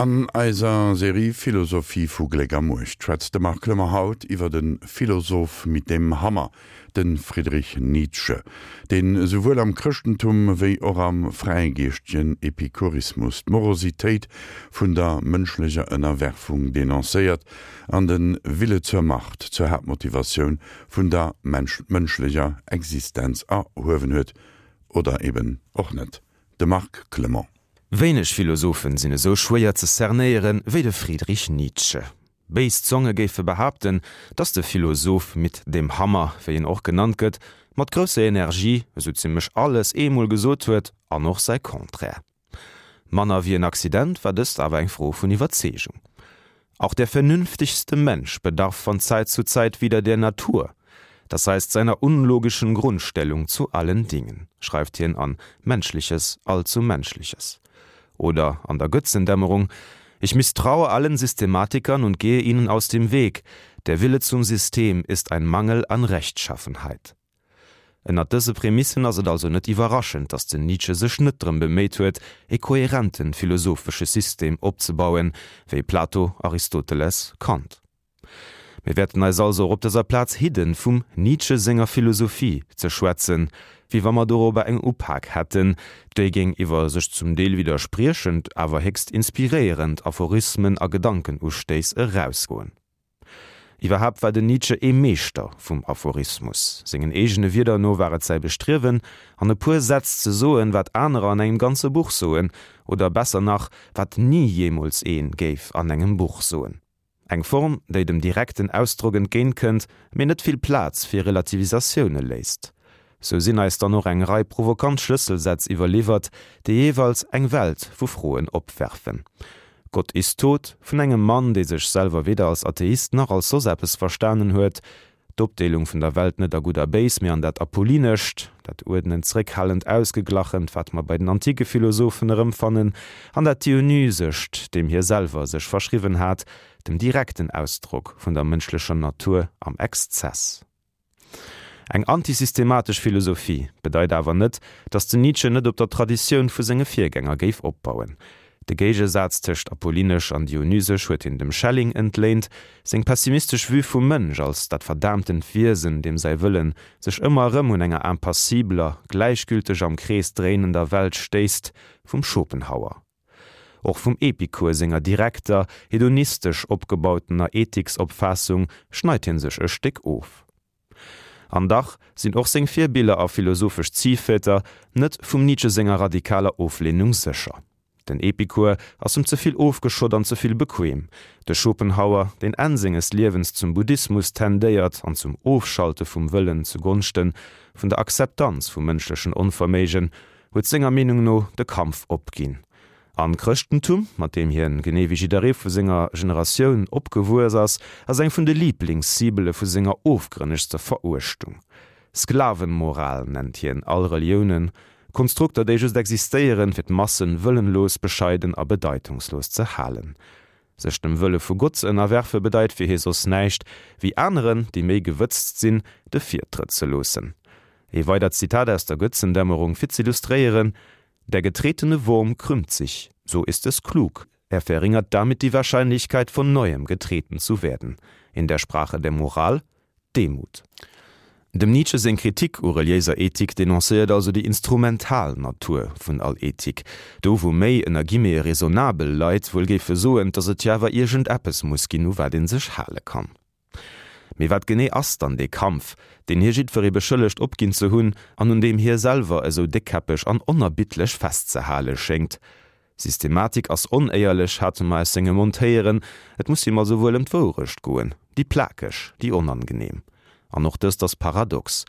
An eiser Serie Philosophie vu Gléck a Muecht schwätzt de Marc Clement haut iwwer de Philosoph mit dem Hammer, de Friedrich Nietzsche, deen esouwuel am Chrëschtentum wéi och am fräigeeschtegen Epikurismus d'Morositéit vun der mënschlecher Ënnerwerfung denoncéiert an de Wille zur Macht zur Haaptmotivatioun vun der mënschlecher Existenz erhuewen huet, oder eben och net. De Marc Clement. Wéineg Philosophen sinn esou schwéier ze cernéieren wéi de Friedrich Nietzsche. Béis Zonge géife behaapten, datt de Philosoph mit dem Hammer, wéi en och genannt gëtt, mat grousser Energie esou zimmlech alles eemol gesot huet an och säi Contraire. Manner wéi en Accident war dëst awer eng Fro vun Iwwerzeegung. Auch der vernünftigste Mensch bedarf von Zeit zu Zeit wieder der Natur, das heißt seiner unlogischen Grundstellung zu allen Dingen, schreift hien an Menschliches, allzu Menschliches. Oder an der Götzendämmerung, Ich misstraue allen Systematikern und gehe ihnen aus dem Weg, der Wille zum System ist ein Mangel an Rechtschaffenheit. Ënnert dëse Prämissen ass et also net iwwerraschend, datt den Nietzsche sech net drëm beméit huet, e kohärenten philosophesche System opzebauen, wéi Plato, Aristoteles, Kant. Mir wäerten eis also och op dëser Plaz hidden, vum Nietzsche senger Philosophie ze schwätzen, wéi wa mer dorobber eng Upak hätten, déi géing iwwer sech zum Deel widderspriechend, awer héchst inspiréierend Aphorismen a Gedankenustéiss erausgoen. Iwwerhaapt war den Nietzsche ee Meeschter vum Aphorismus. Sengen eegene Wierder no war et säi Bestriewen, an e puer Sätz ze soen, wat anerer an engem ganze Buch soen, oder besser nach, wat ni jeemools ee géif an engem Buch soen. Eng Form, déi dem direkten Ausdrock entgéint kënnt, mee net vill Plaz fir Relativisatioune léisst. Sou sinn eis dann och eng Rei provokant Schlësselsätz iwwerliwwert, déi jeeweils eng Welt vu Froen opwerfen. Gott ist tot, vun engem Mann, dee sech selwer weder als Atheist nach als soss eppes verstanen huet, d'Opdeelung vun der Welt net a Gutt a Béis, mee an dat Apollinescht, dat Uerdnend, Zréckhalend, Ausgeglachent, wat mer bei den antike Philosophen erëmfannen, an dat Dionysescht, deem hie selwer sech verschriwwen hat, dem direkten Ausdrock vun der mënschlecher Natur am Exzess. Eng antisystematesch Philosophie bedeit awer net, datt den Nietzsche net op der Traditioun vu senge Virgänger géif opbauen. De Géigesaz tëscht apollinesch an dionysesch huet hien dem Schelling entléint, seng pessimistesch Vue vum Mënsch als dat verdaamtent Wiesen, deem säi Wëllen sech ëmmer erëm un enger impassibeler, gläichgülteg am Krees dréinender Welt stéisst, vum Schopenhauer. Och vum Epikur senger direkter, hedonistesch opgebautener Ethiksopfaassung schneit hien sech e Stéck of. An dach sinn och seng Virbiller a philosophesch Ziehväter net vum Nietzsche senger radikaler Oflehnung sécher. Den Epikur ass em ze vill ofgeschott an ze vill bequem. De Schopenhauer, deen Enn senges Liewens zum Buddhismus tendéiert an zum Ofschalte vum Wëllen zu Gonschte vun der Akzeptanz vum mënschlechen Onverméigen, huet senger Meenung no de Kampf opginn. An d'Chrëschtentum, mat deem hien, genee wéi jidderee vu senger Generatioun, opgewuess ass, ass eng vun de Liiblingscibele vu senger ofgrënnegster Veruechtung. Sklavenmoral nennt hien all Reliounen, Konstrukter, déi just existéieren, fir d'Massen wëllenlos, bescheiden a bedeitungslos ze halen. Sech dem Wëlle vu Gott ze ënnerwerfe bedeit fir hie soss näischt, wéi aneren, déi méi gewëtzt sinn, de Virtrëtt ze loossen. Ee weidert Zitat aus der Götzendämmerung fir z'illustréieren, Der getretene Wurm krümmt sich, so ist es klug, er verringert damit die Wahrscheinlichkeit, von neuem getreten zu werden. In der Sprache der Moral, Demut. Dem Nietzsche seng Kritik u reliéiser Ethik denoncéiert also déi instrumental Natur vun all Ethik, do wou méi, ënner Guillemete, raisonnabel Leit wuel géife soen, datt et jo awer iergend eppes muss ginn, u wat ee sech hale kann. Mee wat genee ass dann dee Kampf, deen hie jiddweree beschëllegt opginn ze hunn an un deem hie selwer esou déckkäppeg an onerbiddlech festzehale schéngt? Systematik ass onéierlech, hate mer aus sengem Mond héieren. Et muss him also wuel ëm d'Wourecht goen, déi plakeg, déi onangenehm. An och dëst ass paradox,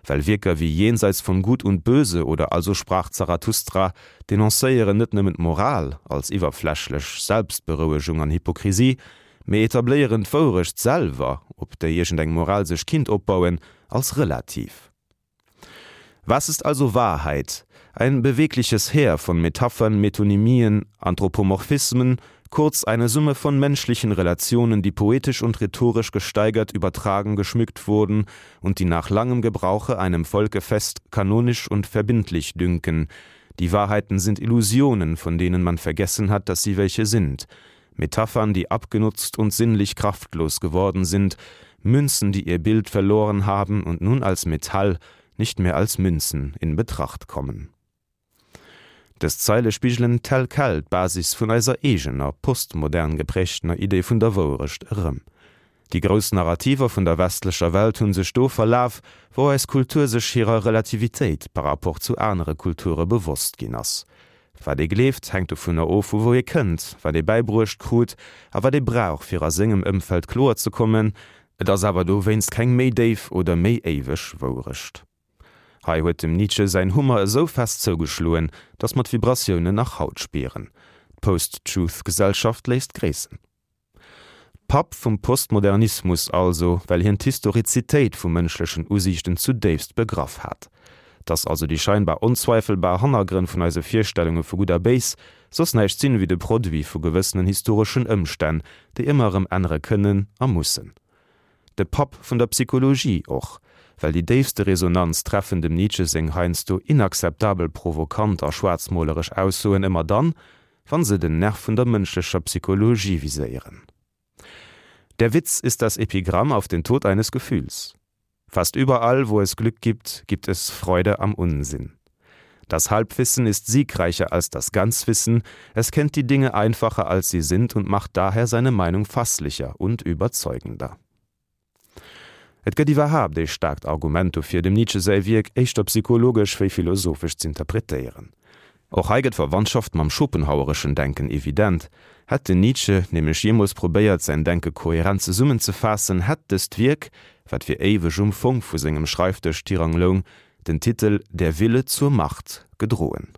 well Wierker wéi Jenseits von Gut und Böse oder Also sprach Zarathustra denoncéieren net nëmmen d'Moral als iwwerflächlech Selbstberouegung an Hypokrisie, mee etabléieren d'Wourecht selwer, op déi iergendeng Moral sech kinnt opbauen, als relativ. Was ist also Wahrheit? Ein bewegliches Heer von Metaphern, Metonymien, Anthropomorphismen, kurz eine Summe von menschlichen Relationen, die poetisch und rhetorisch gesteigert, übertragen, geschmückt wurden und die nach langem Gebrauche einem Volke fest, kanonisch und verbindlich dünken. Die Wahrheiten sind Illusionen, von denen man vergessen hat, dass sie welche sind. Metaphern, die abgenutzt und sinnlich kraftlos geworden sind, Münzen, die ihr Bild verloren haben und nun als Metall, nicht mehr als Münzen in Betracht kommen. Dës Zeile spigelen tel quel d'Basis vun eiser eegener, postmodern geprägtener Idee vun der Wouerecht erëm. Déi grouss Narrativer vun der westlecher Welt hu sech do verlaf, wou eis Kultur sech hirer Relativitéit par rapport zu anere Kulture bewosst ginn ass. Wat ee gleeft, hänkt dovunner of, vu wou ee kënnt, wat ee bäibruecht krut a wat ee brauch, fir a sengem Ëmfeld kloer ze kommen. Et ass awer dowéinst keng méi déif oder méi éiweg Wouerecht. Hei huet dem Nietzsche säin Hummer esou fest zougeschloen, datt mer d'Vibratiounen nach haut spieren. D'Post-Truth-Gesellschaft léisst gréissen. Papp vum Postmodernismus also, well hien d'Historizitéit vu mënschlechen Usiichten zudéifst begraff hat. Dass also déi scheinbar onzweifelbar Hannergrënn vun eise Virstellunge vu Gutt a Béis soss näischt sinn ewéi de Produit vu gewëssenen historeschen Ëmstänn, déi ëmmer erëm ännere kënnen a mussen. De Papp vun der Psychologie och, well déi déifste Resonanz treffen dem Nietzsche seng heiansdo inakzeptabel provokant a schwaarzmoleresch Aussoen ëmmer dann, wann se den Nerv vun der mënschlecher Psychologie viséieren. Der Witz ist das Epigramm auf den Tod eines Gefühls. Fast überall, wo es Glück gibt, gibt es Freude am Unsinn. Das Halbwissen ist siegreicher als das Ganzwissen, es kennt die Dinge einfacher als sie sind und macht daher seine Meinung fasslicher und überzeugender. Et gëtt iwwerhaapt ee staarkt Argument dofir, dem Nietzsche säi Wierk éischter psychologesch wéi philosophesch z'interpretéieren. Och hei gëtt d'Verwandschaft mam schopenhauereschen Denken evident. Hätt den Nietzsche nämlech jeemools probéiert, säin Denke kohärent zesummenzefaassen, hätt dëst Wierk, wat fir éiweg um Fong vu sengem Schreifdësch tirang loung, den Titel Der Wille zur Macht gedroen.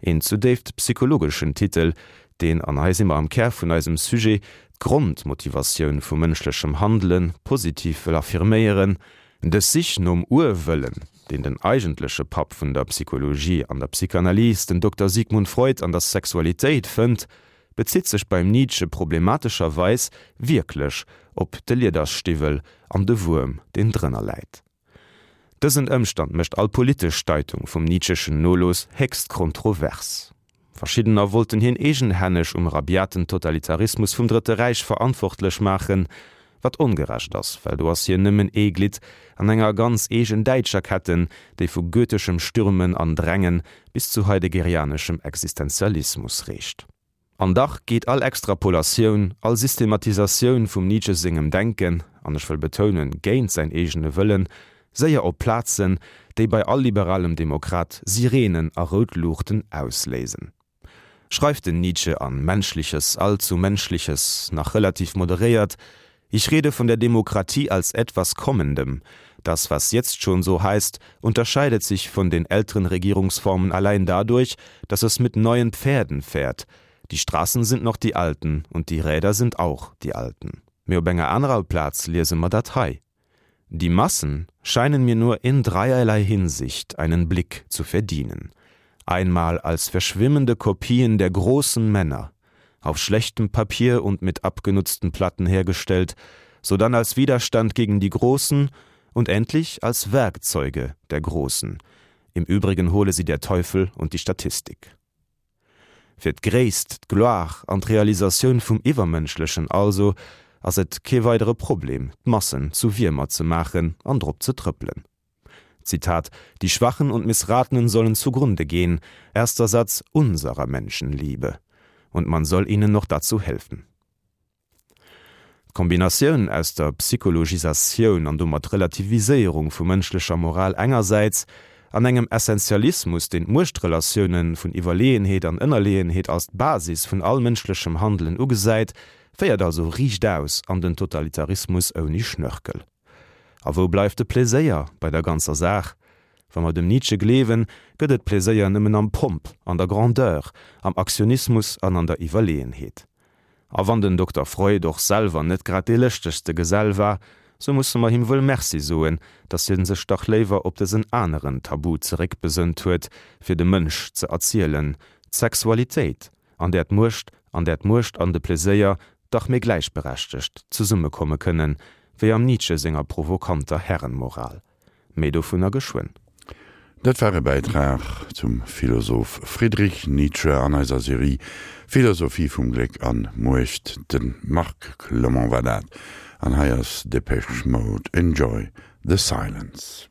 Een zudéift psychologeschen Titel, deen, an hei si mer am Kär vun eisem Sujet, d'Grondmotivatioun vu mënschlechem Handele positiv wëll affirméieren, Dës Sich nom Urwëllen, deen den eigentleche Papp vun der Psychologie an der Psychanalyse, den Dokter Sigmund Freud, an der Sexualitéit fënnt, bezitt sech beim Nietzsche problematescherweis wierklech op de Liedersstiwwel an de Wuerm, deen drënner läit. Dësen Ëmstand mécht all politesch Deitung vum Nietzscheschen Nolooss héchst kontrovers. Verschiddener wollten hien eegenhänneg um rabiaten Totalitarismus vum Drëtte Räich verantwortlech maachen, wat ongerecht ass, well do ass hien nëmmen ee Glidd an enger ganz eegen däitscher Ketten, déi vu goetheschem Stürmen an Drängen bis zu heideggerianeschem Existenzialismus reecht. An dach geet all Extrapolatioun, all Systematisatioun vum Nietzsche sengem Denken, an ech wëll betounen, géint säin eegene Wëllen, séier op Plazen, déi bei all liberalem Demokrat Sirenen a rout Luuchten ausléisen. Schreift den Nietzsche an Menschliches, allzu Menschliches nach relativ moderéiert, Ich rede von der Demokratie als etwas Kommendem. Das, was jetzt schon so heißt, unterscheidet sich von den älteren Regierungsformen allein dadurch, dass es mit neuen Pferden fährt. Die Straßen sind noch die alten und die Räder sind auch die alten. Mee op enger anerer Plaz liese mer dat hei, Die Massen scheinen mir nur in dreierlei Hinsicht einen Blick zu verdienen. Einmal als verschwimmende Kopien der großen Männer, auf schlechtem Papier und mit abgenutzten Platten hergestellt, sodann als Widerstand gegen die Großen und endlich als Werkzeuge der Großen. Im Übrigen hole sie der Teufel und die Statistik. Fir d'Gréisst, d'Gloire an d'Realisatioun vum Iwwermënschlechen also ass et kee weidere Problem, d'Massen zu Wiermer ze maachen an drop ze trëppelen. Zitat, Die Schwachen und Missratenen sollen zugrunde gehen, erster Satz unserer Menschenliebe, und man soll ihnen noch dazu helfen. D'Kombinatioun aus der Psychologisatioun an domat Relativiséierung vu mënschlecher Moral engersäits an engem Essentialismus, deen d'Muechtrelatiounen vun Iwwerleeënheet an Ënnerleeënheet als d'Basis vun all mënschlechem Handelen ugesäit, féiert also riichtaus an den Totalitarismus ouni Schnörkel. A wou bleift de Pleséier bei der ganzer Saach? Wa mer dem Nietzsche gleewen, gëtt et Pleséier nëmmen am Pomp, an der Grandeur, am Aktionismus an an der Iwwerleeënheet. A wann den Dokter Freud och selwer net grad dee lëschtegste Gesell war, sou musse mer him wuel Merci soen, datt hien sech dach léiwer op dësen aneren Tabu zeréckbesënnt huet, fir de Mënsch ze erzielen, d'Sexualitéit, an där d'Muecht an där d'Muecht an de Pleséier dach méi gläichberechtegt zesummekomme kënnen, wéi am Nietzsche senger provokanter Herrenmoral. Méi dovunner geschwënn. Dat war e Bäitrag zum Philosoph Friedrich Nietzsche an eiser Serie Philosophie vum Gléck an Muecht. De Marc Clement war dat. An hei ass Depeche Mode, Enjoy the Silence.